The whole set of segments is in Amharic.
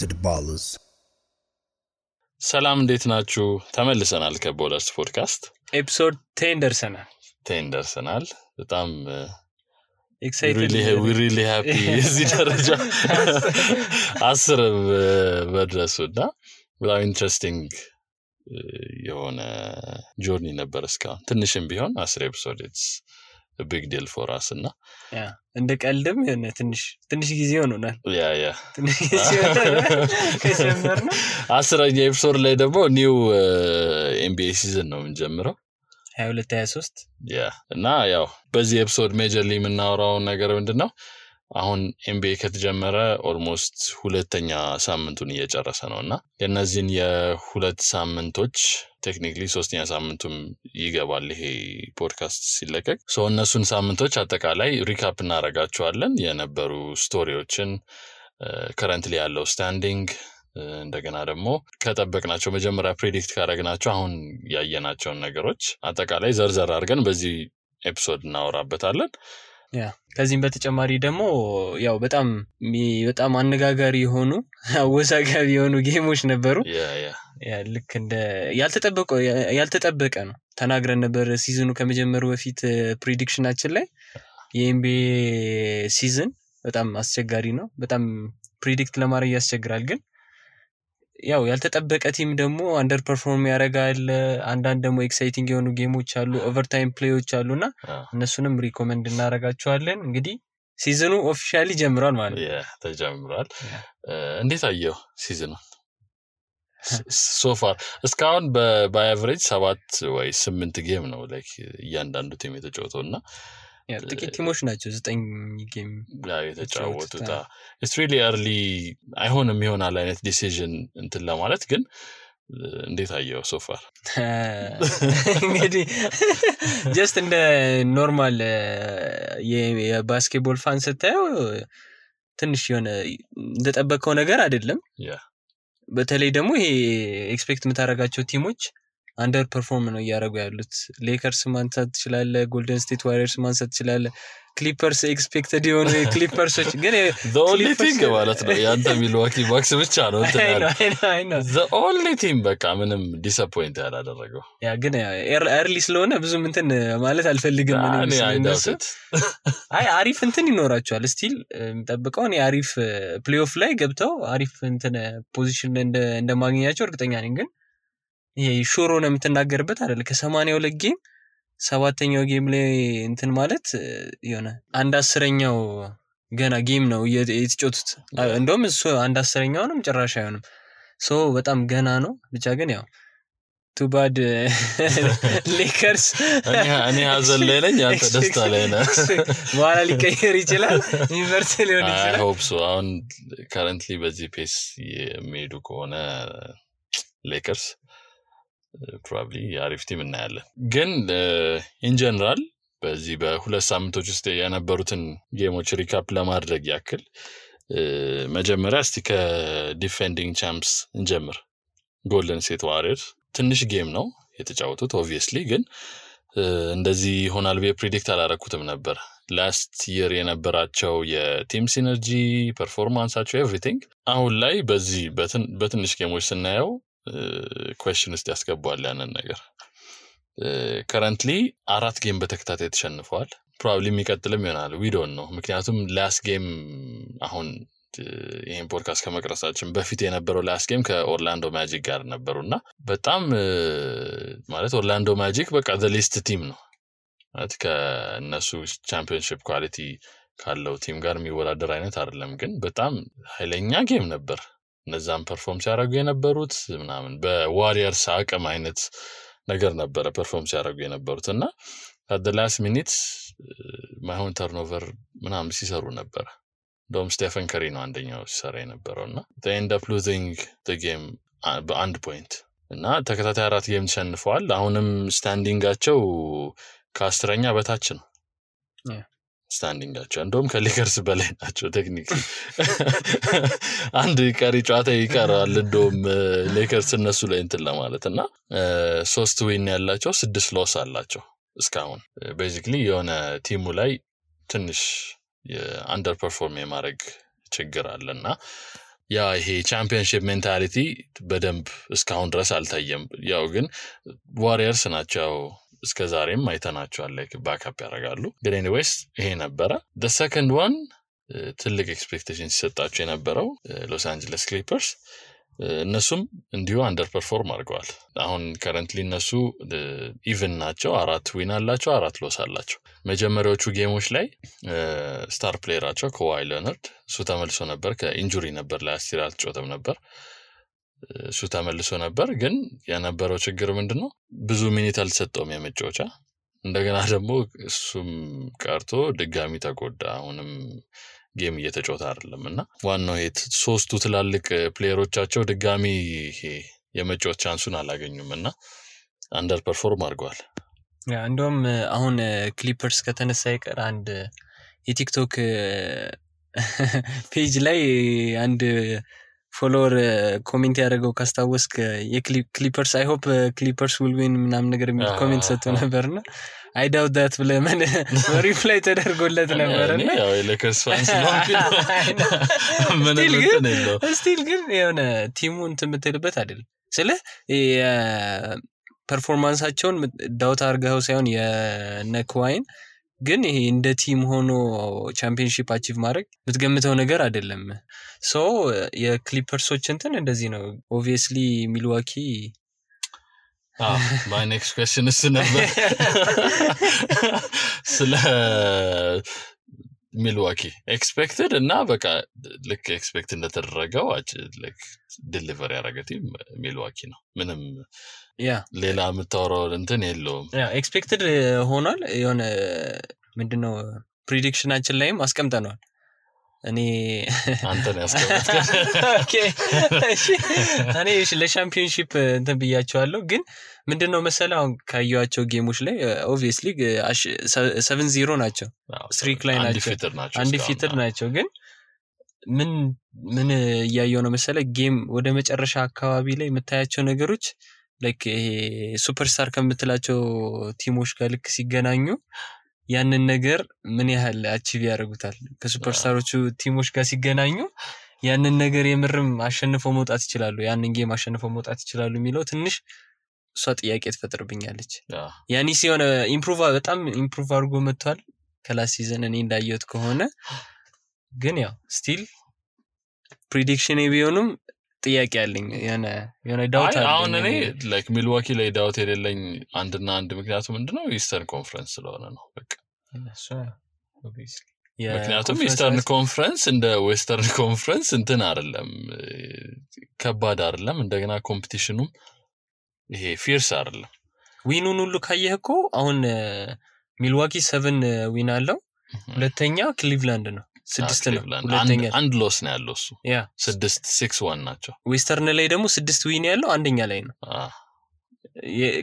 to the ballers. ሰላም እንዴት ናችሁ? ተመልሰናል ከቦለርስ ፖድካስት ኤፒሶድ 10 ደርሰናል። በጣም ኤክሳይትድ we really happy እዚህ ደረጃ 10 በድረሱና በጣም ኢንትረስቲንግ የሆነ ጆርኒ ነበር እስካሁን ትንሽም ቢሆን 10 ኤፒሶድ it's a big deal for us እና እንደ ቀልድም የሆነ ትንሽ ጊዜ ሆኖናል ያ ትንሽ ጊዜ ሆኖናል ከጀመርነው 10ኛ ኤፒሶድ ላይ ደግሞ ኒው NBA ሲዝን ነው የምንጀምረው 22-23 እና ያው በዚህ ኤፒሶድ ሜጀርሊ የምናወራው ነገር ምንድነው አሁን NBA ከተጀመረ ኦልሞስት ሁለተኛ ሳምንቱን እየጨረሰ ነውና የነዚህን የሁለት ሳምንቶች ቴክኒካሊ ሶስተኛ ሳምንቱም ይገባል ይሄ ፖድካስት ሲለቀቅ እነሱን ሳምንቶች አጠቃላይ ሪካፕ እናረጋቸዋለን የነበሩ ስቶሪዎችን ከረንትሊ ያለው ስታንዲንግ እንደገና ደግሞ ከጠበቅናቸው መጀመሪያ ፕሬዲክት ካረግናቸው አሁን ያየናቸውን ነገሮች አጠቃላይ ዘርዘር አድርገን በዚህ ኤፒሶድ እናወራበታለን ከዚህም በተጨማሪ ደግሞ ያው በጣም አነጋጋሪ የሆኑ አወዛጋቢ የሆኑ ጌሞች ነበሩ ልክ እንደ ያልተጠበቀ ነው ተናግረን ነበር ሲዝኑ ከመጀመሩ በፊት ፕሬዲክሽናችን ላይ የኤምቢኤ ሲዝን በጣም አስቸጋሪ ነው በጣም ፕሬዲክት ለማድረግ ያስቸግራል ግን ያው ያልተጠበቀ ቲም ደግሞ አንደር ፐርፎርም ያረጋል አንዳንድ ደግሞ ኤክሳይቲንግ የሆኑ ጌሞች አሉ ኦቨርታይም ፕሌዮች አሉና እነሱንም ሪኮመንድ እናረጋቸዋለን እንግዲህ ሲዝኑ ኦፊሻሊ ጀምሯል ማለት ተጀምሯል እንዴት አየው ሲዝኑ so far እስካሁን በአቨሬጅ 7 ወይ 8 ጌም ነው ላይክ እያንዳንዱ ቲም የተጫወተውና ጥቂት ቲሞች ናቸው 9 ጌም የተጫወቱት it's really early አይሆንም ይሆናል አይነት ዲሲዥን እንትን ለማለት ግን እንዴት አየው so far እንግዲህ just እንደ ኖርማል የባስኬትቦል ፋን ስታየው ትንሽ የሆነ እንደጠበቀው ነገር አይደለም በተለይ ደግሞ ይሄ ኤክስፔክት የምታረጋቸው ቲሞች አንደር ፐርፎርም ነው ያደረጉ ያሉት ሌከርስ ማንሳት ይችላል ጎልደን ስቴት ዋሪየርስ ማንሳት ይችላል ክሊፐርስ ኤክስፔክትድ የሆኑ ክሊፐርሶች ግን the only thing ማለት ነው ያንተ ሚልዋኪ ባክስ ብቻ ነው I know the only team በቃ ምንም ዲስአፖይንት ያላደረገው ግን ኤርሊ ስለሆነ ብዙም እንትን ማለት አልፈልግም አሪፍ እንትን ይኖራቸዋል ስቲል ጠብቀው አሪፍ ፕሌይኦፍ ላይ ገብተው አሪፍ እንትን ፖዚሽን እንደማግኘታቸው እርግጠኛ ነኝ ግን ይሄ ሹሮ ነው የምትናገርበት አይደል ከ82 ጌም 7ኛው ጌም ላይ እንትን ማለት የሆነ 1/10ኛው ገና ጌም ነው የተጫወቱት እንደውም እሱ 1/10ኛው ነው ጭራሽ አይሆንም በጣም ገና ነው ብቻ ግን ያው too bad ሌከርስ እኔ ሀዘን ላይ ነኝ አንተ ደስታ ላይ ነህ በኋላ ሊቀየር ይችላል ዩኒቨርሲቲ ሊሆን ይችላል I hope so አሁን currently በዚህ ፔስ የሚሄዱ ከሆነ ሌከርስ probably አሪፍ ቲም እናያለን ግን in general በዚህ በሁለት ሳምንቶች ውስጥ የነበሩትን ጌሞች ሪካፕ ለማድረግ ያክል መጀመሪያ እስቲ ከዲፌንዲንግ ቻምፕስ እንጀምር ጎልደን ስቴት ዋሪየርስ ትንሽ ጌም ነው የተጫወቱት obviously ግን እንደዚህ ሆናል ብዬ ፕሬዲክት አላረኩትም ነበር ላስት ይር የነበራቸው የቲም ሲነርጂ ፐርፎርማንሳቸው ኤቭሪቲንግ አሁን ላይ በዚህ በትንሽ ጌሞች ስናየው question ውስጥ ያስገባዋል ያንን ነገር currently 4 ጌም በተከታታይ ተሸንፈዋል probably የሚቀጥልም ይሆናል we don't know ምክንያቱም ላስት ጌም አሁን ይሄን ፖድካስት ከመቅረጻችን በፊት የነበረው ላስት ጌም ከኦርላንዶ ማጂክ ጋር ነበርና በጣም ማለት ኦርላንዶ ማጂክ በቃ the least team ነው ማለት ከነሱ ቻምፒዮንሺፕ ኳሊቲ ካለው ቲም ጋር የሚወዳደር አይነት አይደለም ግን በጣም ኃይለኛ ጌም ነበር እነዛም ፐርፎርም ሲያደርጉ የነበሩት ምናምን በዋሪየርስ አቅም አይነት ነገር ነበር ፐርፎርም ሲያደርጉ የነበሩትና at the last minute ማይሆን ተርኖቨር ምናምን ሲሰሩ ነበር ዶም ስቴፈን ከሪ ነው አንደኛው ሲሰራ የነበረውና they end up losing the game በአንድ ፖይንት እና ተከታታይ 4 ጌም ተሸንፈዋል አሁንም ስታንዲንጋቸው ከ10ኛ በታች ነው ስታንዲንጋቸው እንደውም ከሌከርስ በላይ ናቸው ቴክኒካሊ አንድ ቀሪ ጨዋታ ይቀራል እንደውም ሌከርስ እነሱ ላይ እንትን ለማለትና 3 ዊን ያላቸው 6 ሎስ አላቸው እስካሁን ቤዚክሊ የሆነ ቲሙ ላይ ትንሽ አንደር ፐርፎርም የማድረግ ችግር አለና ያ ይሄ ቻምፒየንሺፕ ሜንታሊቲ በደንብ እስካሁን ድረስ አልታየም ያው ግን ዋሪየርስ ናቸው እስከዛሬም አይተናቸዋል ላይክ ባክአፕ ያደርጋሉ ግን ኤኒዌይስ ይሄ ነበረ the second one ትልቅ ኤክስፔክቴሽን ሲሰጣቸው የነበረው ሎስ አንጀለስ ክሊፐርስ እነሱም እንዲሁ አንደር ፐርፎርም አድርገዋል አሁን ከረንትሊ እነሱ ኢቭን ናቸው 4 ዊን አላቸው 4 ሎስ አላቸው መጀመሪያዎቹ ጌሞች ላይ ስታር ፕሌየራቸው ከዋይ ሌነርድ እሱ ተመልሶ ነበር ከኢንጁሪ ነበር ላስት ይር አልተጫወተም ነበር እሱ ተመልሶ ነበር ግን የነበረው ችግር ምንድነው ብዙ ሚኒት አልተሰጠውም የመጫወቻ እንደገና ደግሞ እሱም ቀርቶ ድጋሚ ተጎዳ አሁንም ጌም እየተጫወተ አይደለምና ዋናው ሄት ሶስቱ ትላልቅ ፕሌየሮቻቸው ድጋሚ የመጫወት ቻንሱን አላገኙምና አንደር ፐርፎርም አድርገዋል ያ እንደውም አሁን ክሊፐርስ ከተነሳ ይቀር አንድ የቲክቶክ ፔጅ ላይ አንድ ፎሎወር ኮሜንት ያደረገው ካስታወስክ የክሊፐርስ አይ ሆፕ ክሊፐርስ ዊል ዊን ምናምን ነገር የሚል ኮሜንት ሰጥቶ ነበርና I doubt that ብለምን ሪፕላይ ተደርጎለት ነበርና ያው የሌከርስ ፋንስ ነው ስቲል ግን የሆነ ቲሙን ትምትልበት አይደል ስለ ፐርፎርማንሳቸውን ዳውት አርጋው ሳይሆን የነክዋይን ግን ይሄ እንደ ቲም ሆኖ ቻምፒየንሺፕ አቺቭ ማድረግ ምትገምተው ነገር አይደለም ሶ የክሊፐርሶች እንትን እንደዚህ ነው obviously ሚልዋኪ my next question is ነበር ስለ ሚልዋኪ ኤክስፔክትድ እና በቃ ልክ ኤክስፔክት እንደተደረገው like ዲሊቨር ያደረገ ሚልዋኪ ነው ምንም ሌላ የምታወራው እንትን የለውም ኤክስፔክትድ ሆኗል የሆነ ምንድነው ፕሪዲክሽናችን ላይም አስቀምጠናል እኔ አንተን ያስቀምጥከ ኦኬ እኔ ለሻምፒዮንሺፕ እንትን ብያቸዋለሁ ግን ምንድነው መሰለው ካዩአቸው ጌሞች ላይ obviously 7-0 ናቸው ስትሪክ ላይ ናቸው አንዲፊትድ ናቸው ግን ምን ያያየው ነው መሰለ ጌም ወደ መጨረሻ አካባቢ ላይ የምታያቸው ነገሮች ላይክ ይሄ ሱፐርስታር ከምትላቸው ቲሞች ጋር ልክ ሲገናኙ ያንን ነገር ምን ያህል አቺቭ ያደርጉታል ከሱፐርስታሮቹ ቲሞች ጋር ሲገናኙ ያንን ነገር የምርም አሸንፈው መውጣት ይችላሉ ያንን ጌም አሸንፈው መውጣት ይችላሉ የሚለው ትንሽ እሷ ጥያቄ ተፈጥርብኛለች ያኒ ሲሆነ በጣም ኢምፕሩቭ አድርጎ መጥቷል ከላስ ሲዝን እኔ እንዳየሁት ከሆነ ግን ያው ስቲል ፕሪዲክሽን ቢሆንም ጥያቄ አለኝ የሆነ ዳውት አለኝ አሁን እኔ ላይክ ሚልዋኪ ላይ ዳውት የሌለኝ አንድና አንድ ምክንያቱ ምንድነው ኢስተርን ኮንፈረንስ ስለሆነ ነው በቃ እሱ obviously ምክንያቱም ኢስተርን ኮንፈረንስ እንደ ዌስተርን ኮንፈረንስ እንትን አይደለም ከባድ አይደለም እንደገና ኮምፒቲሽኑም ይሄ ፊርስ አይደለም ዊኑን ሁሉ ካየህኮ አሁን ሚልዋኪ 7 ዊን አለው ሁለተኛ ክሊቭላንድ ነው 6 ነው ሁለተኛ አንድ ሎስ ነው ያለው እሱ 6-6-1 ናቸው ዌስተርን ላይ ደግሞ 6 ዊን ያለው አንደኛ ላይ ነው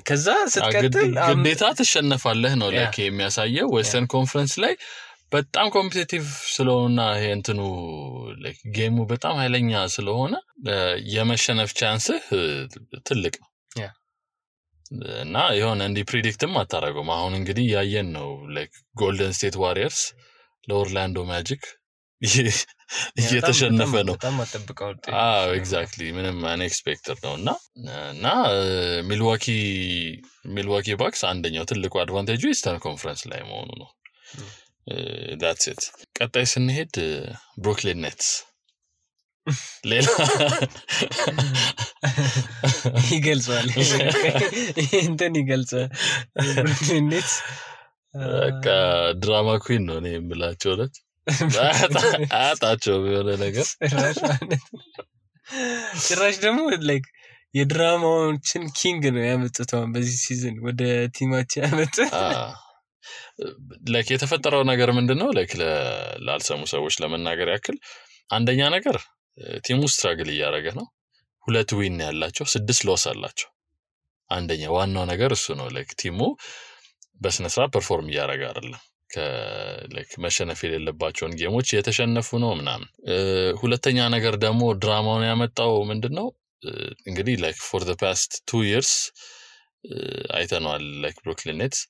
ከዛ ስትቀጥል ግዴታ ተሸነፋለህ ነው ለከ የሚያሳየው ዌስተርን ኮንፈረንስ ላይ በጣም ኮምፒቲቲቭ ስለሆነና ይሄ እንትኑ ላይክ ጌሙ በጣም ኃይለኛ ስለሆነ የመሸነፍ ቻንስ ትልቅ ነው እና የሆነ እንዲ ፕሪዲክትም አታረጋም አሁን እንግዲህ ያየን ነው ላይክ ጎልደን ስቴት ዋሪየርስ ለኦርላንዶ ማጂክ እየተሸነፈ ነው በጣም አጥብቀው ኤግዛክትሊ ምንም አንኤክስፔክትድ ነውና ሚልዋኪ ባክስ አንደኛው ትልቁ አድቫንቴጁ ኢስተርን ኮንፈረንስ ላይ መሆኑ ነው that's it ቀጣይ ስንሄድ ብሩክሊን ኔትስ ሌላ ይገልጻል እንትን ይገልጻል ብሩክሊን ኔትስ በቃ ድራማ ኩዊን ነው እኔ የምላቸው ለት አጣቸው የሆነ ነገር ጭራሽ ደግሞ ላይክ የድራማዎችን ኪንግ ነው ያመጡት በዚህ ሲዝን ወደ ቲማቸው ያመጡ ላይክ የተፈጠረው ነገር ምንድነው ላይክ ላልሰሙ ሰዎች ለመናገር ያክል አንደኛ ነገር ቲሙ ስትራግል እያደረገ ነው 2 ዊን ያላቸው 6 ሎስ አላቸው አንደኛ ዋናው ነገር እሱ ነው ላይክ ቲሙ በስነስራ ፐርፎርም እያደረገ አይደለም ላይክ መሸነፍ የሌለባቸውን ጌሞች የተሸነፉ ነው ምናምን ሁለተኛ ነገር ደግሞ ድራማውን ያመጣው ምንድነው እንግዲህ ላይክ for the past 2 years አይተናል ላይክ ብሩክሊን ኔትስ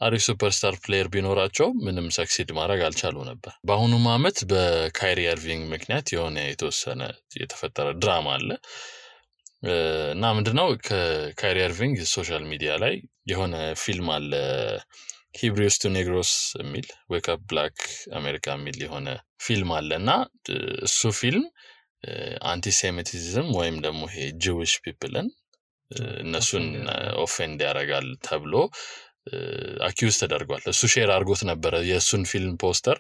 አሪፍ ሱፐርስታር ፕሌየር ቢኖራቸው ምንም ሰክሲድ ማድረግ አልቻሉ ነበር። በአሁኑ ዓመት በካይሪ ኢርቪንግ ምክንያት የሆነ የተወሰነ የተፈጠረ ድራማ አለ እና ምንድነው ከካይሪ ኢርቪንግ ሶሻል ሚዲያ ላይ የሆነ ፊልም አለ ሂብሪውስ ቱ ኔግሮስ የሚል ዌክ አፕ ብላክ አሜሪካ የሚል የሆነ ፊልም አለና እሱ ፊልም አንቲሴሚቲዝም ወይም ደግሞ ይሄ ጂዊሽ ፒፕልን እነሱን ኦፌንድ ያደርጋል ተብሎ አኪውዝ ተደርጓል። እሱ ሼር አድርጎት ነበር የሱን ፊልም ፖስተር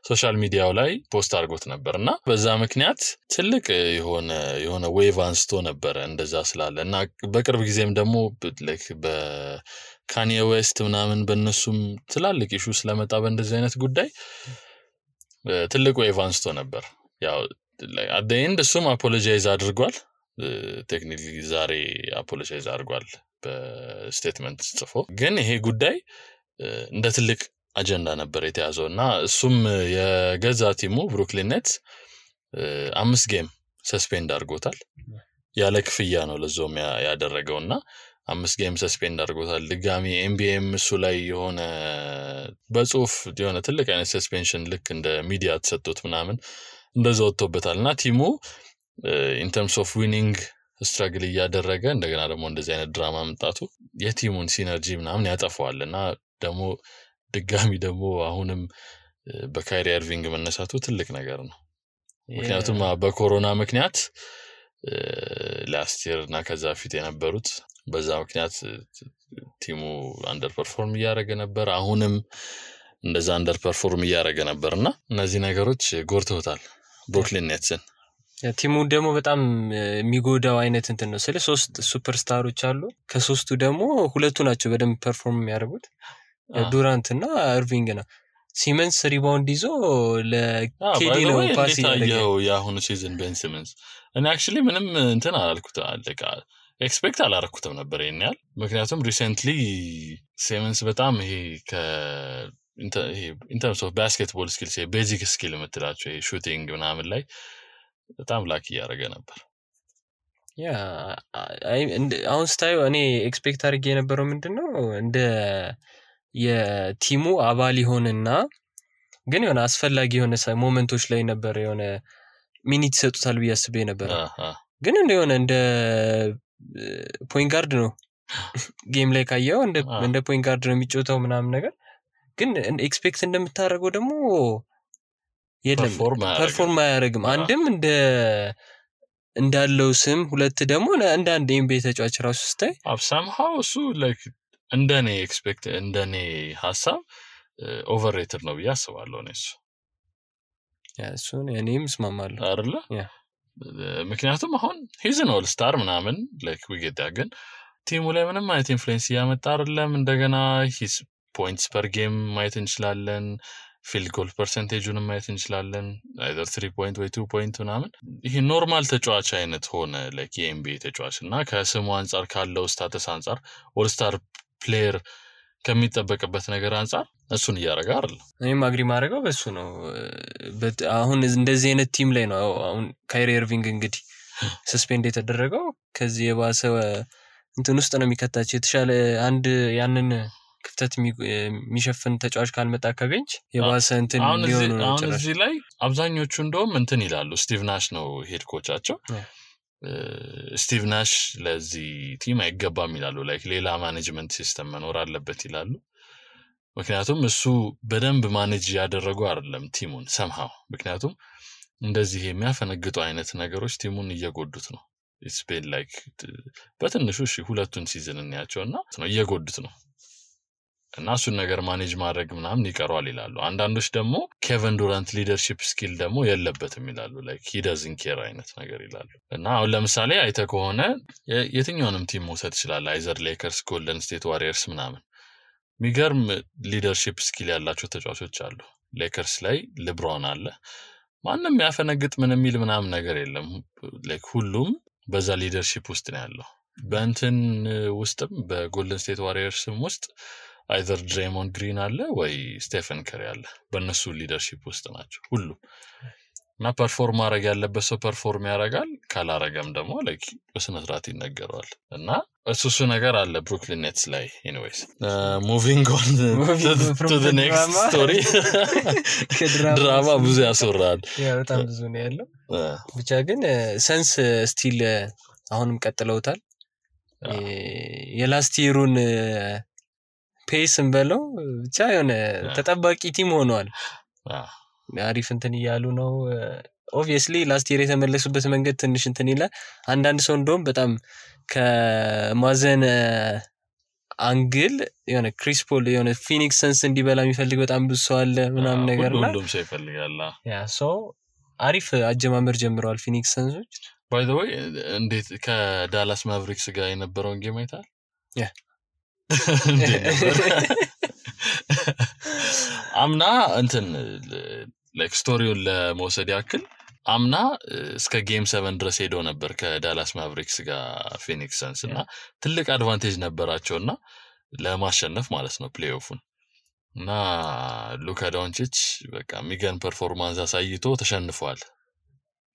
ሶሻል ሚዲያው ላይ ፖስት አድርጎት ነበርና በዛ ምክንያት ትልቅ የሆነ ዌቭ አንስቶ ነበር እንደዛ ስላለ እና በቅርብ ጊዜም ደግሞ በካኒዬ ዌስት ምናምን በእነሱም ትላልቅ ኢሹ ስለመጣ በእንደዚህ አይነት ጉዳይ ትልቅ ዌቭ አንስቶ ነበር። ያው at the end እሱም አፖሎጃይዝ አድርጓል። ቴክኒካሊ ዛሬ አፖሎጃይዝ አድርጓል በስቴትመንት ጽፎ። ግን ይሄ ጉዳይ እንደ ትልቅ አጀንዳ ነበር የተያዘውና እሱም የገዛ ቲሙ ብሩክሊን ኔትስ 5 ጌም ሰስፔንድ አድርጎታል። ያለ ክፍያ ነው ለዞም ያደረገውና 5 ጌም ሰስፔንድ አድርጎታል። ድጋሚ ኤምቢኤም እሱ ላይ የሆነ በጽሁፍ የሆነ ትልቅ አይነት ሰስፔንሽን ልክ እንደ ሚዲያ ተሰጥቶት ምናምን እንደዛው ወጥቶበታልና ቲሙ in terms of winning ስትራግል እያደረገ እንደገና ደግሞ እንደዚህ አይነት ድራማ መምጣቱ የቲሙን ሲነርጂ ምናምን ያጠፋዋልና ደግሞ ድጋሚ ደግሞ አሁንም በካይሪ ኢርቪንግ መነሳቱ ትልቅ ነገር ነው። ምክንያቱም በኮሮና ምክንያት ላስት ይር እና ከዛ ፊት የነበሩት በዛ ምክንያት ቲሙ አንደር ፐርፎርም እያደረገ ነበር። አሁንም እንደዛ አንደር ፐርፎርም እያደረገ ነበርና እነዚህ ነገሮች ጎርተውታል ብሩክሊን ኔትስን። ቲሙ ደግሞ በጣም የሚጎዳው አይነት እንትን ነው። 3 ሱፐርስታሮች አሉ። ከሶስቱ ደግሞ ሁለቱ ናቸው በደንብ ፐርፎርም የሚያደርጉት ዱራንት እና ኢርቪንግ ነው። ሲመንስ ሪባውንድ ይዞ ለኬዲ ነው ፓስ ያለው ያሁኑ ሲዝን ቤን ሲመንስ እና actually ምንም እንትን አላልኩት አለቃ ኤክስፔክት አላረኩትም ነበር ይሄኛል። ምክንያቱም ሪሰንትሊ ሲመንስ በጣም ይሄ in terms of basketball skills ቤዚክ ስኪል የምትላቸው ሹቲንግ ምናምን ላይ በጣም ላኪ ያደረገ ነበር። ያ አሁን ስታዩ እኔ ኤክስፔክት አድርጌ የነበረው ምንድነው እንደ የቲሙ አባል ይሆንና ግን የሆነ አስፈላጊ የሆነ ሞመንቶች ላይ ነበር የሆነ ሚኒት ይሰጡታል ብዬ አስቤ ነበር። ግን እንደ ፖይንት ጋርድ ነው ጌም ላይ ካየው እንደ ፖይንት ጋርድ ነው የሚጫወተው ምናምን ነገር። ግን ኤክስፔክት እንደምታደርገው ደግሞ የለም ፐርፎርም አያደርግም። አንድም እንዳለው ስም ሁለት ደግሞ እንደ አንድ ኤምቢኤ ተጫዋች ራሱ ስታይ somehow እሱ like እንደኔ ሐሳብ ኦቨርሬትድ ነው ብዬ አስባለሁ ነው እሱ። እሱን እኔም እስማማለሁ አይደለ? ምክንያቱም አሁን he's an all star ምናምን like we get that ግን ቲሙ ላይ ምንም አይነት ኢንፍሉዌንስ ያመጣ አይደለም። እንደገና his points per game ማየት እንችላለን። ፊልድ ጎል ፐርሰንቴጁን ማየት እንችላለን። either 3 point ወይ 2 point ምናምን ይሄ ኖርማል ተጫዋች አይነት ሆነ like የኤምቢኤ ተጫዋች እና ከስሙ አንፃር ካለው ስታተስ አንፃር ኦል ስታር ፕሌየር ከሚጠበቅበት ነገር አንፃር እሱን እያደረገ አይደል? እኔም አግሪ ማድረገው በሱ ነው። አሁን እንደዚህ አይነት ቲም ላይ ነው አሁን ካይሪ ኢርቪንግ እንግዲህ ሰስፔንድ የተደረገው ከዚህ የባሰ እንትን ውስጥ ነው የሚከታቸው። የተሻለ አንድ ያንን ክፍተት የሚሸፍን ተጫዋች ካልመጣ ከቤንች የባሰ እንትን ሊሆኑ ነው። አሁን እዚህ ላይ አብዛኞቹ እንደውም እንትን ይላሉ ስቲቭ ናሽ ነው ሄድ ኮቻቸው። ስቲቭ ናሽ ለዚህ ቲም አይገባም ይላሉ። ላይክ ሌላ ማኔጅመንት ሲስተም መኖር አለበት ይላሉ። ምክንያቱም እሱ በደንብ ማኔጅ ያደረጉ አይደለም ቲሙን somehow። ምክንያቱም እንደዚህ የሚያፈነግጡ አይነት ነገሮች ቲሙን እየጎዱት ነው። it's been like በትንሹ ሁለቱን ሲዝን እንያቸውና ነው እየጎዱት ነው እና እሱን ነገር ማኔጅ ማድረግ ምናምን ይቀርዋል ይላሉ። አንዳንዶች ደግሞ ኬቨን ዱራንት ሊደርሺፕ ስኪል ደግሞ የለበትም ይላሉ። ላይክ he doesn't care አይነት ነገር ይላሉ። እና አሁን ለምሳሌ አይተ ከሆነ የትኛውንም ቲም መውሰድ ይችላል አይዘር ሌከርስ፣ ጎልደን ስቴት ዋሪየርስ ምናምን ሚገርም ሊደርሺፕ ስኪል ያላቸው ተጫዋቾች አሉ። ሌከርስ ላይ ሌብሮን አለ። ማንንም ያፈነግጥ ምንም የሚል ምናምን ነገር የለም። ላይክ ሁሉም በዛ ሊደርሺፕ ውስጥ ነው ያለው። በእንትን ውስጥም በጎልደን ስቴት ዋሪየርስም ውስጥ either ድሬሞንድ ግሪን አለ ወይ ስቴፈን ከሪ አለ። በእነሱ ሊደርሺፕ ውስጥ ናቸው ሁሉም። እና ፐርፎርም ማድረግ ያለበት ሰው ፐርፎርም ያደርጋል ካላረገም ደግሞ ላይክ በስነ ስርዓት ይነገረዋል እና እሱ ነገር አለ ብሩክሊን ኔትስ ላይ ኤኒዌይስ ሙቪንግ ኦን ቱ ዘ ኔክስት ስቶሪ ድራማ ብዙ ያስወራል በጣም ብዙ ነው ያለው ብቻ ግን ሰንስ ስቲል አሁንም ቀጥለውታል የላስት ይሩን ፔስን በለው ብቻ የሆነ ተጠባቂ ቲም ሆኗል አሪፍ እንትን ይያሉ ነው obviously ላስት ይር የተመለሱበት መንገድ ትንሽ እንትን ይላል አንዳንድ ሰው እንደውም በጣም ከማዘን አንግል የሆነ ክሪስ ፖል የሆነ ፊኒክስ ሰንስ እንዲበላ የሚፈልግ በጣም ብዙ ሰው አለ ምናምን ነገርና ሁሉም ሰው ይፈልጋል ያ ሶ አሪፍ አጀማመር ጀምረዋል ፊኒክስ ሰንሶች by the way እንዴት ከዳላስ ማቨሪክስ ጋር የነበረውን ጌም አይታል ያ አምና እንትን ላይክ ስቶሪውን ለመውሰድ ያክል አምና እስከ ጌም 7 ድረስ ሄዶ ነበር ከዳላስ ማቨሪክስ ጋር ፊኒክስ ሰንስ እና ትልቅ አድቫንቴጅ ነበራቸውና ለማሸነፍ ማለት ነው ፕሌይኦፉን እና ሉካ ዶንቺች በቃ ሚገን ፐርፎርማንስ አሳይቶ ተሸንፏል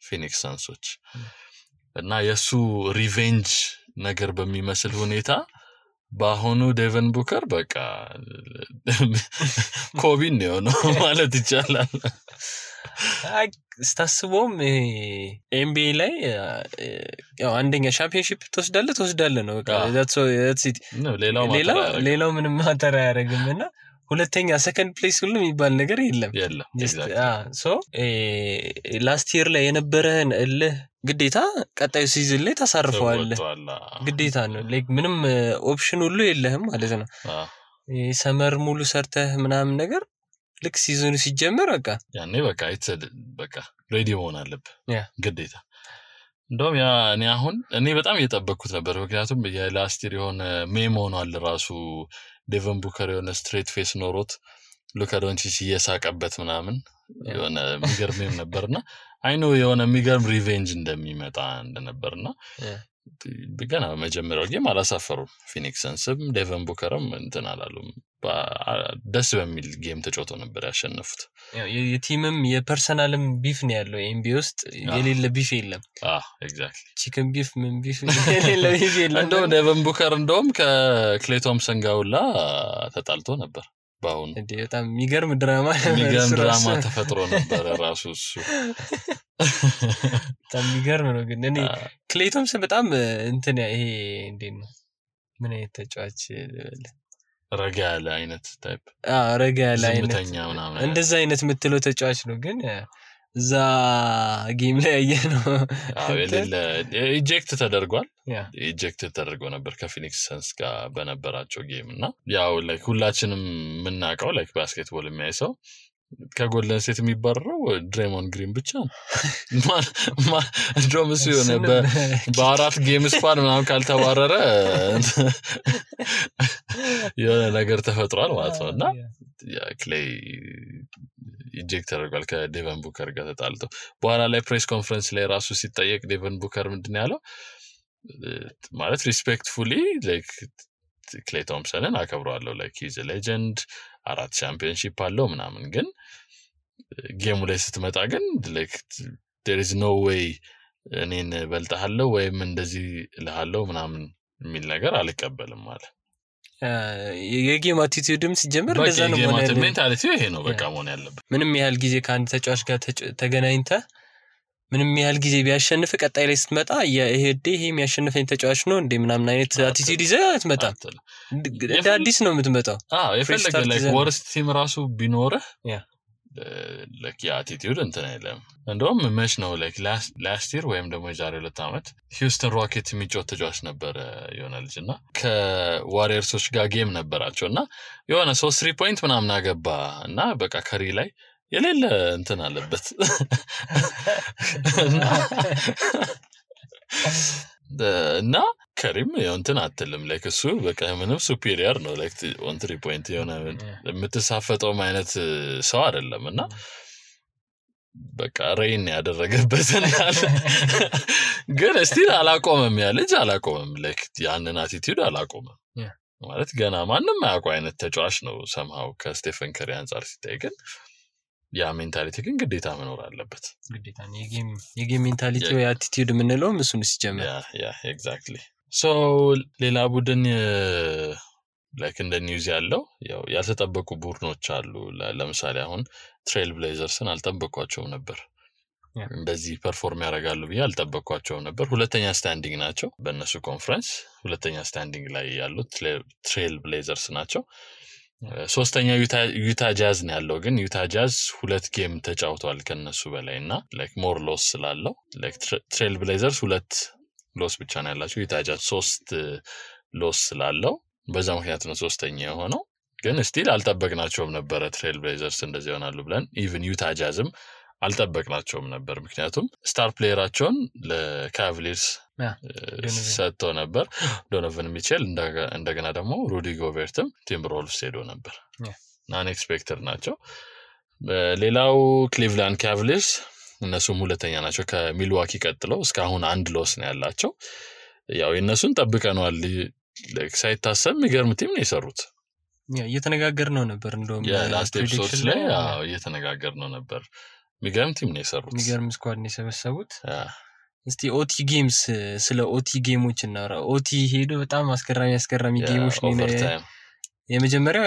ፊኒክስ ሰንሶች እና የሱ ሪቬንጅ ነገር በሚመስል ሁኔታ ባሆኑ ዴቨን ቡከር በቃ ኮቢን ነው ማለት ይቻላል ስታስቦም ኤምቢኤ ላይ ያው አንደኛ ቻምፒየንሺፕ ተወስዳለ ነው በቃ that's it ሌላው ምንም ማተር አያረግምና ሁለተኛ ሰከንድ ፕሌስ ሁሉ የሚባል ነገር የለም ሶ ላስት ይር ላይ የነበረን ግዴታ ቀጣዩ ሲዝን ላይ ታሳርፈዋል ግዴታ ነው ላይክ ምንም ኦፕሽን ሁሉ የለህም ማለት ነው ሰመር ሙሉ ሰርተህ ምናምን ነገር ልክ ሲዝኑ ሲጀመር በቃ ያኔ በቃ በቃ ሬዲ መሆን አለብህ ግዴታ እንደውም ያ እኔ በጣም እየጠበቅኩት ነበር ምክንያቱም የላስት ይር የሆነ ሜም ሆኗል ራሱ ዴቨን ቡከር የሆነ ስትሬት ፌስ ኖሮት ሉካ ዶንቺች እየሳቀበት ምናምን የሆነ የሚገርም ነበርና አይኖ የሆነ የሚገርም ሪቬንጅ እንደሚመጣ እንደነበርና ገና መጀመሪያው ጌም አላሳፈሩም ፊኒክስ ሰንስም ዴቨን ቡከርም እንትን አላሉም ደስ በሚል ጌም ተጫውተው ነበር ያሸነፉት የቲምም የፐርሰናልም ቢፍ ነው ያለው ኤምቢ ውስጥ የሌለ ቢፍ የለም ኤግዛክትሊ ቺክን ቢፍ ምን ቢፍ የሌለ ቢፍ የለም እንደውም ዴቨን ቡከር እንደውም ከክሌ ቶምሰን ጋውላ ተጣልቶ ነበር ባሁን በጣም የሚገርም ድራማ ተፈጥሮ ነበር ራሱ እሱ በጣም የሚገርም ነው ግን እኔ ክሌ ቶምሰን በጣም እንትን ይሄ እንዴት ነው ምን አይነት ተጫዋች ረጋ ያለ አይነት ታይፕ ረጋ ያለ አይነት እንደዛ አይነት የምትለው ተጫዋች ነው ግን እዛ ጌም ላይ ያየነው ኢጀክት ተደርጓል ኢጀክት ተደርጎ ነበር ከፊኒክስ ሰንስ ጋር በነበራቸው ጌም እና ያው ላይክ ሁላችንም ምናቀው ላይክ ባስኬትቦል የሚያይሰው ከጎልደን ስቴት የሚባረረው ድሬሞን ግሪን ብቻ ነው ድሮምስ የሆነ በአራት ጌም ስፓን ምናምን ካልተባረረ የሆነ ነገር ተፈጥሯል ማለት ነው እና ክሌይ ኢጀክት ተደርጓል ከዴቨን ቡከር ጋር ተጣልቶ በኋላ ላይ ፕሬስ ኮንፈረንስ ላይ ራሱ ሲጠየቅ ዴቨን ቡከር ምንድን ያለው ማለት ሪስፔክትፉሊ ላይክ ክሌ ቶምሰንን አከብረዋለሁ ላይክ ሂዝ ሌጀንድ 4 ቻምፒየንሺፕ አለው ምናምን ግን ጌሙ ላይ ስትመጣ ግን ላይክ there is no way እኔን በልጣለሁ ወይም እንደዚህ ለሃለው ምናምን የሚል ነገር አልቀበልም ማለት የጌም አቲቲዩድም ሲጀምር እንደዛ ነው ማለት ነው ሜንታሊቲው ይሄ ነው በቃ መሆን ያለበት ምንም ያህል ጊዜ ከአንድ ተጫዋች ጋር ተገናኝተ ምንም ያህል ጊዜ ቢያሸንፍ ቀጣይ ላይ ስትመጣ ይሄ የሚያሸንፈኝ ተጫዋች ነው እንደ ምናምን አይነት አቲቲዩድ ይዘህ አትመጣም እንደ አዲስ ነው የምትመጣው የፈለገ ላይክ ወርስት ቲም ራሱ ቢኖርህ like attitude እንትን አይደለም እንደውም መች ነው like last year ወይም ደግሞ የዛሬ 2 አመት ሂውስተን ሮኬት የሚጫወት ተጫዋች ነበር የሆነ ልጅና ከዋሪየርሶች ጋር ጌም ነበራቸውና የሆነ 3 ፖይንት ምናምን አገባ እና በቃ ከሪ ላይ የሌለ እንትን አለበት እና ከሪም እንትን አትልም ላይክ እሱ በቃ ምንም ሱፒሪየር ነው ላይክ ኦን 3 ፖይንት የሆነ የምትሳፈጠው አይነት ሰው አይደለምና በቃ ሬን ያደረገበትን ግን ስቲል አላቆመም ያ ልጅ አላቆመም ላይክ ያንን አቲቲዩድ አላቆመም ማለት ገና ማንንም ያውቀው አይነት ተጫዋች ነው somehow ከስቴፈን ከሪ አንፃር ሲታይ ግን ያ ሜንታሊቲ ግን ግዴታ መኖር አለበት ግዴታ ነው የጌም ሜንታሊቲ ወይ አቲቲዩድ ምንለው እሱን ሲጀምር ያ ኤግዛክትሊ ሶ ሌላ ቡድን ላይክ እንደ ኒውዝ ያለው ያው ያልተጠበቁ ቡድኖች አሉ ለምሳሌ አሁን ትሬል ብሌዘርስን አልጠበቋቸውም ነበር እንደዚህ ፐርፎርም ያደርጋሉ ብዬ አልጠበቅኳቸውም ነበር ሁለተኛ ስታንዲንግ ናቸው በእነሱ ኮንፈረንስ ሁለተኛ ስታንዲንግ ላይ ያሉት ትሬል ብሌዘርስ ናቸው ሶስተኛ ዩታ ጃዝ ነው ያለው ግን ዩታ ጃዝ ሁለት ጌም ተጫውቷል ከነሱ በላይና ላይክ ሞር ሎስ ስላለው ላይክ ትሬል ብሌዘርስ ሁለት ሎስ ብቻ ነው ያላቸው ዩታ ጃዝ 3 ሎስ ስላለው በዛ ምክንያት ነው ሶስተኛ የሆነው ግን ስቲል አልጠበቅናቸውም ነበር ትሬል ብሌዘርስ እንደዚህ ይሆናሉ ብለን ኢቭን ዩታ ጃዝም አልጠበቅናቸውም ነበር ምክንያቱም ስታር ፕሌየራቸውን ለካቭሊርስ ሰጥቶ ነበር ዶኖቨን ሚቼል እንደገና ደግሞ ሩዲ ጎቤርትም ቲምበርወልቭስ ሄዶ ነበር ናን ኤክስፔክተድ ናቸው ሌላው ክሊቭላንድ ካቭሊርስ እነሱም ሁለተኛ ናቸው ከሚልዋኪ ቀጥለው እስካሁን አንድ ሎስ ነው ያላቸው ያው የነሱን ጠብቀናል ሳይታሰብ የሚገርም ቲም ነው የሰሩት እየተነጋገርነው ነበር እንደውም ላስት ኤፒሶድስ ላይ እየተነጋገርነው ነበር የሚገርም ቲም ነው የሰሩት የሚገርም ስኳድ ነው የሰበሰቡት እስቲ ኦቲ ጌምስ ስለ ኦቲ ጌሞች እናወራ ኦቲ ሄዶ በጣም አስገራሚ ጌሞች ነው የመጀመሪያው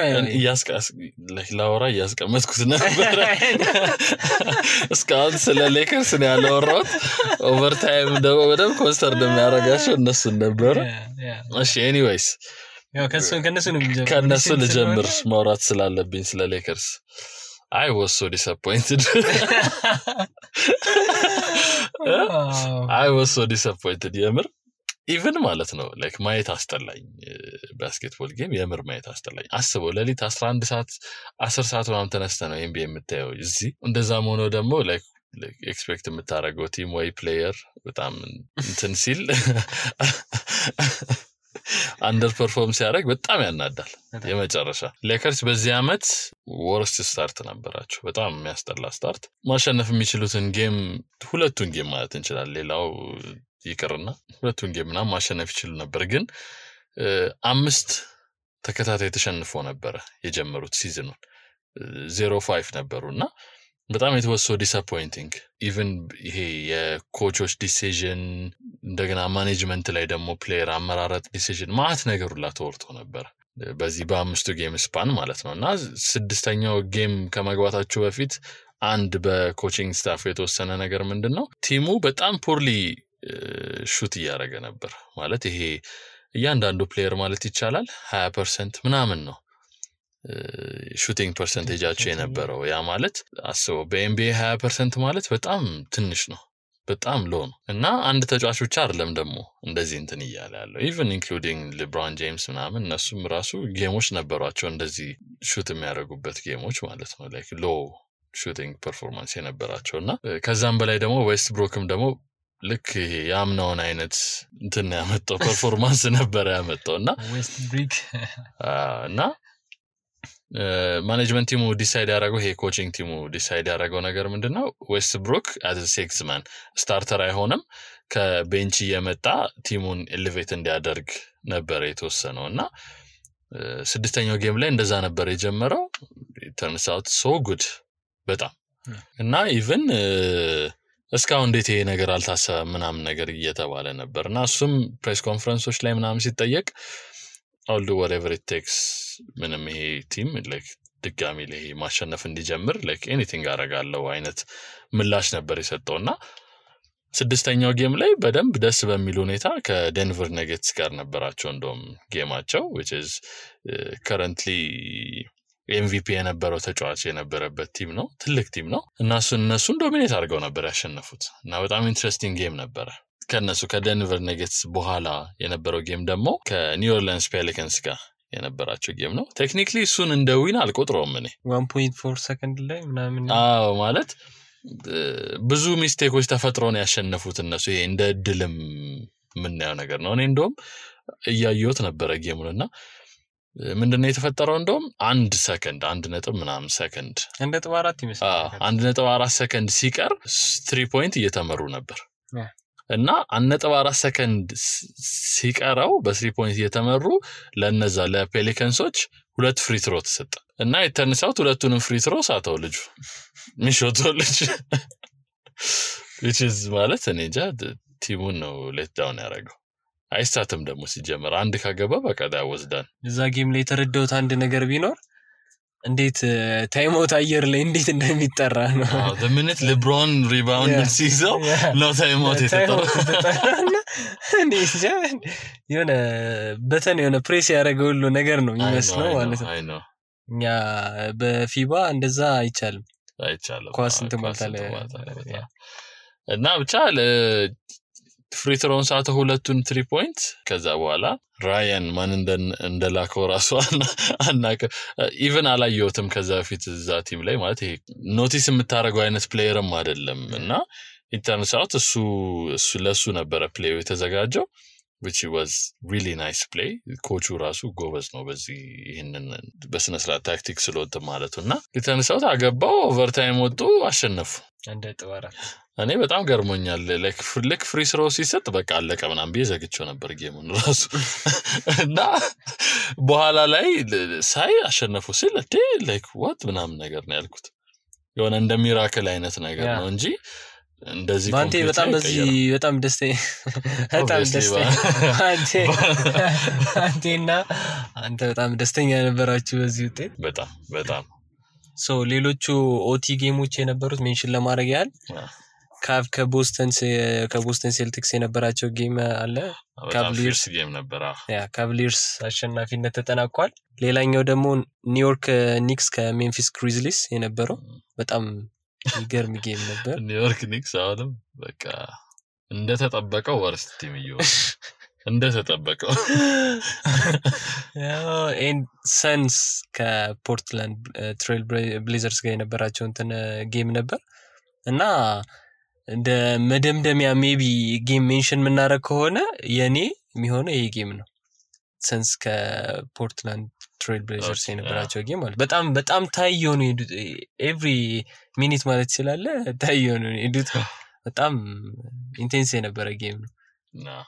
ላወራ ያስቀመጥኩት ነበር እስካሁን ስለ ሌከርስ ነው ያለወራሁት ኦቨርታይም ደግሞ በደንብ ኮንስተር እንደሚያደርጋቸው እነሱ ነበር እሺ ኤኒዌይስ ያው ከነሱ ልጀምር ማውራት ስላለብኝ ስለ ሌከርስ I was so disappointed. I was so disappointed. የምር even ማለት ነው like ማየት አስጠላኝ ባስኬትቦል ጌም የምር ማየት አስጠላኝ አስበው ለሊት 11 ሰዓት 10 ሰዓት ምናምን ተነስተ ነው NBA የምታየው እዚህ እንደዛም ሆኖ ደግሞ like ኤክስፔክት የምታረገው ቲም ወይ ፕሌየር በጣም እንትን ሲል አንደር ፐርፎርም ሲያደርግ በጣም ያናዳል የመጨረሻ ሌከርስ በዚህ አመት ወርስት ስታርት ነበራቸው በጣም የሚያስጠላ ስታርት ማሸነፍ የሚችሉትን ጌም ሁለቱን ጌም ማለት እንችላለን ሌላው ይቅርና ሁለቱን ጌም እና ማሸነፍ ይችሉ ነበር ግን 5 ተከታታይ ተሸንፎ ነበር የጀመሩት ሲዝኑን 0-5 ነበሩና በጣም it was so disappointing even ይሄ የኮቾች ዲሲዥን እንደገና ማኔጅመንት ላይ ደግሞ ፕሌየር አመራረጥ ዲሲዥን ማት ነገሩላ ተወርቶ ነበር በዚህ በአምስቱ ጌም ስፓን ማለት ነውና ስድስተኛው ጌም ከመግባታቸው በፊት አንድ በኮቺንግ ስታፍ የተወሰነ ነገር ምንድነው ቲሙ በጣም ፖርሊ ሹት ያደረገ ነበር ማለት ይሄ እያንዳንዱ ፕሌየር ማለት ይቻላል 20% ምናምን ነው ሹቲንግ ፐርሰንቴጃቸው የነበረው ያ ማለት አስበው በኤንቢኤ 20% ማለት በጣም ትንሽ ነው በጣም ሎ ነው እና አንድ ተጫዋች ብቻ አይደለም ደግሞ እንደዚህ እንትን ይያለ ያለው ኢቭን ኢንክሉዲንግ ሌብሮን ጄምስ ምናምን እነሱም ራሱ ጌሞች ነበሯቸው እንደዚህ ሹት የሚያደርጉበት ጌሞች ማለት ነው ላይክ ሎ ሹቲንግ ፐርፎርማንስ የነበራቸውና ከዛም በላይ ደግሞ ዌስት ብሮክም ደግሞ ልክ ያምናውን አይነት እንትን ያመጣው ፐርፎርማንስ ነበር ያመጣውና ዌስት ብሪክ እና ማኔጅመንት ቲሙ ዲሳይድ ያደረገው ይሄ ኮቺንግ ቲሙ ዲሳይድ ያደረገው ነገር ምንድነው ዌስት ብሩክ as a sixth man ስታርተር አይሆንም ከቤንች የመጣ ቲሙን ኤሌቬት እንዲያደርግ ነበር የተወሰነውና ስድስተኛው ጌም ላይ እንደዛ ነበር የጀመረው turns out so good በጣም እና ኢቭን እስካሁን እንዴት ይሄ ነገር አልታሰበም ምናምን ነገር እየተባለ ነበርና እሱም ፕሬስ ኮንፈረንሶች ላይ ምናምን ሲጠየቅ I'll do whatever it takes ምንም ይሄ ቲም like ድጋሚ ላይ ማሸነፍ እንዲጀምር like anything አረጋለሁ አይነት ምላሽ ነበር የሰጠውና ስድስተኛው ጌም ላይ በደንብ ደስ በሚል ሁኔታ ከዴንቨር ነጌትስ ጋር ነበራቸው እንደውም ጌማቸው which is currently MVP የነበረው ተጫዋች የነበረበት ቲም ነው ትልቅ ቲም ነው እና እነሱን ዶሚኔት አድርገው ነበር ያሸነፉት እና በጣም ኢንትረስቲንግ ጌም ነበር ከነሱ ከዴንቨር ነጌትስ በኋላ የነበረው ጌም ደግሞ ከኒው ኦርሊንስ ፔሊካንስ ጋር የነበራቸው ጌም ነው ቴክኒካሊ እሱን እንደ ዊን አልቆጥረውም እኔ 1.4 ሰከንድ ላይ ምናምን ማለት ብዙ ሚስቴኮች ተፈጥሮ ነው ያሸነፉት እነሱ ይሄ እንደ ድልም ምን ያው ነገር ነው እኔ እንደውም እያየሁት ነበር ጌሙንና ምንድነው የተፈጠረው እንደውም 1 ሰከንድ 1 ምናምን ሰከንድ 1.4 ይመስላል 1.4 ሰከንድ ሲቀር 3 ፖይንት እየተመሩ ነበር እና 1.4 ሰከንድ ሲቀረው በ3 ፖይንት እየተመሩ ለነዛ ለፔሊካንሶች ሁለት ፍሪ ትሮ ተሰጠ እና የተነሳው ሁለቱንም ፍሪ ትሮ ሳተው ልጁ ሚሾቶ ልጅ which is ማለት እኔ እንጃ ቲሙን ነው ሌት ዳውን ያደረገው አይሳትም ደግሞ ሲጀመር አንድ ካገባ በቃ ዳወስዳን እዛ ጌም ላይ ተረዳውት አንድ ነገር ቢኖር እንዴት ታይም አውት አየር ላይ እንዴት እንደሚጠራ ነው the minute LeBron rebounded ሲይዘው ነው ታይም አውት የተጠራው የሆነ በተን የሆነ ፕሬስ ያደረገው ሁሉ ነገር ነው የሚመስለው ማለት ነው እኛ በፊባ እንደዛ አይቻልም ኳስ እንትን ማታለ እና ብቻ ፍሪ ትሮን ሳተ ሁለቱን 3 ፖይንት ከዛ በኋላ ራያን ማን እንደላከው ራሱ አናቀ ኢቭን አላየውትም ከዛ በፊት እዛ ቲም ላይ ማለት ይሄ ኖቲስ የምታረገው አይነት ፕሌየርም አይደለም እና ኢንተርናሽናል እሱ ለሱ ነበረ ፕሌዩ የተዘጋጀው which was really nice play ኮቹ ራሱ ጎበዝ ነው በዚህ ይሄንን በስነ ስርዓት ታክቲክ ስለወጥ ማለቱና ኢንተርናሽናል አገባው ኦቨርታይም ወጡ አሸነፉ እንደ ጥዋራ እኔ በጣም ገርሞኛል ላይክ ፍሪ ስሮ ሲሰጥ በቃ አለቀ ምናምን ቢዘግቸው ነበር ጌሙን ራሱ እና በኋላ ላይ ሳይ አሸነፉ ሲል ላይክ what ምናምን ነገር ነው ያልኩት የሆነ እንደ ሚራክል አይነት ነገር ነው እንጂ እንደዚህ ባንቴ በጣም በጣም ደስተኛ አንቴና አንተ በጣም ደስተኛ ነበራችሁ በዚህ ውጤት በጣም ሶ ሌሎቹ ኦቲ ጌሞች የነበሩት ሜንሽን ለማድረግ ያህል ከቦስተን ሴልቲክስ የነበራቸው ጌም አለ ካቭሊርስ ጌም ነበር ካቭሊርስ አሸናፊነት ተጠናቋል ሌላኛው ደግሞ ኒውዮርክ ኒክስ ከሜምፊስ ግሪዝሊስ የነበረው በጣም ይገርም ጌም ነበር ኒውዮርክ ኒክስ አሁንም በቃ እንደተጠበቀው ወርስት ቲም ይሆን እንደተጠበቀው ኤንድ ሰንስ ከፖርትላንድ ትሬል ብሌዘርስ ጋር የነበራቸው እንትን ጌም ነበር እና እንደ መደምደሚያ ሜቢ ጌም ሜንሽን ምናረግ ከሆነ የኔ የሚሆነው ይሄ ጌም ነው ሰንስ ከፖርትላንድ ትሬል ብሌዘርስ የነበራቸው ጌም ማለት በጣም ታይዮ ነው ኤቭሪ ሚኒት ማለት ይችላል ታይዮ ነው በጣም ኢንቴንስ የነበረ ጌም ነው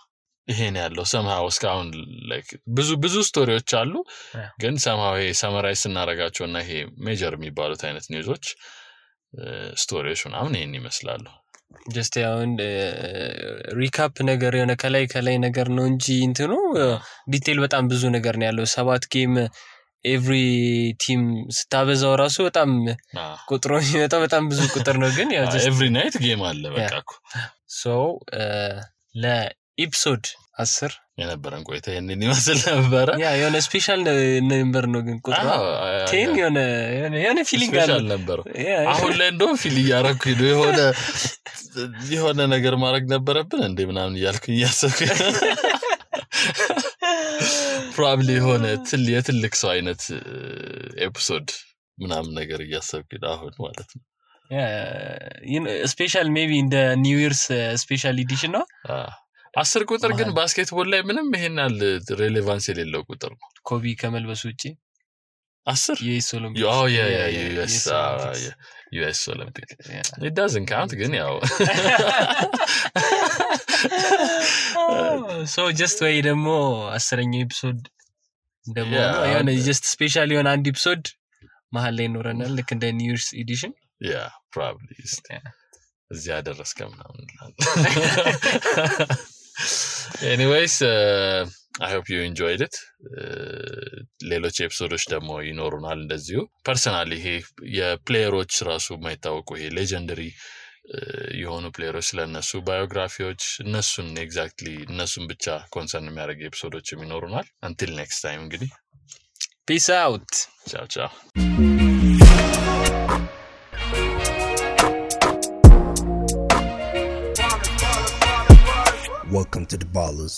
ይሄን ያለው somehow እስካሁን like ብዙ ስቶሪዎች አሉ ግን somehow ሰመራይዝ እናረጋቸውና ይሄ ሜጀር የሚባሉት አይነት ኒውዞች ስቶሪዎች ምናምን ይሄን ይመስላሉ just ያውን ሪካፕ ነገር የሆነ ከላይ ነገር ነው እንጂ እንትኑ ዲቴል በጣም ብዙ ነገር ነው ያለው 7 ጌም ኤቭሪ ቲም ስታበዛው ራሱ በጣም ቁጥሩ የሚመጣው በጣም ብዙ ቁጥር ነው ግን ያው just every night ጌም አለ በቃኩ so ለኤፒሶድ 10 የነበረን ቆይታ ይሄንን ይመስል ነበር የሆነ ስፔሻል ነምበር ነው ግን ቁጥሩ 10 የሆነ ፊሊንግ አለ ነበር አሁን ላይ እንደው ፊል ያረኩ የሆነ ነገር ማድረግ ነበረብን እንዴ ምናምን እያልኩኝ ያሰብኩ probably የሆነ የትልቅ ሰው አይነት ኤፒሶድ ምናምን ነገር እያሰብኩ አሁን ማለት ነው ስፔሻል ሜቢ እንደ ኒው ይርስ ስፔሻል ኤዲሽን ነው 10 ቁጥር ግን ባስኬትቦል ላይ ምንም ይሄናል ሬሌቫንስ የሌለው ቁጥር ነው ኮቢ ከመልበስ ውጪ 10 ዩኤስ ኦሎምፒክ ዩኤስ ኦሎምፒክ it doesn't count ግን ያው so just way ደግሞ 10ኛው ኤፒሶድ ደግሞ ያው just ስፔሻል የሆነ አንድ ኤፒሶድ መሃል ላይ ኖረናል ልክ እንደ ኒው ይርስ ኤዲሽን probably እዚህ ያደረስከም ነው anyways I hope you enjoyed it ሌሎች ኤፒሶዶች ደግሞ ይኖሩናል እንደዚሁ ፐርሰናሊ ይሄ የፕሌየሮች ራሱ ማይታወቁ ይሄ ሌጀንደሪ የሆኑ ፕሌየሮች ስለነሱ ባዮግራፊዎች እነሱን ኤግዛክትሊ እነሱን ብቻ ኮንሰርን የሚያደርግ ኤፒሶዶችም ይኖሩናል until next time እንግዲህ peace out ciao Welcome to the Ballers.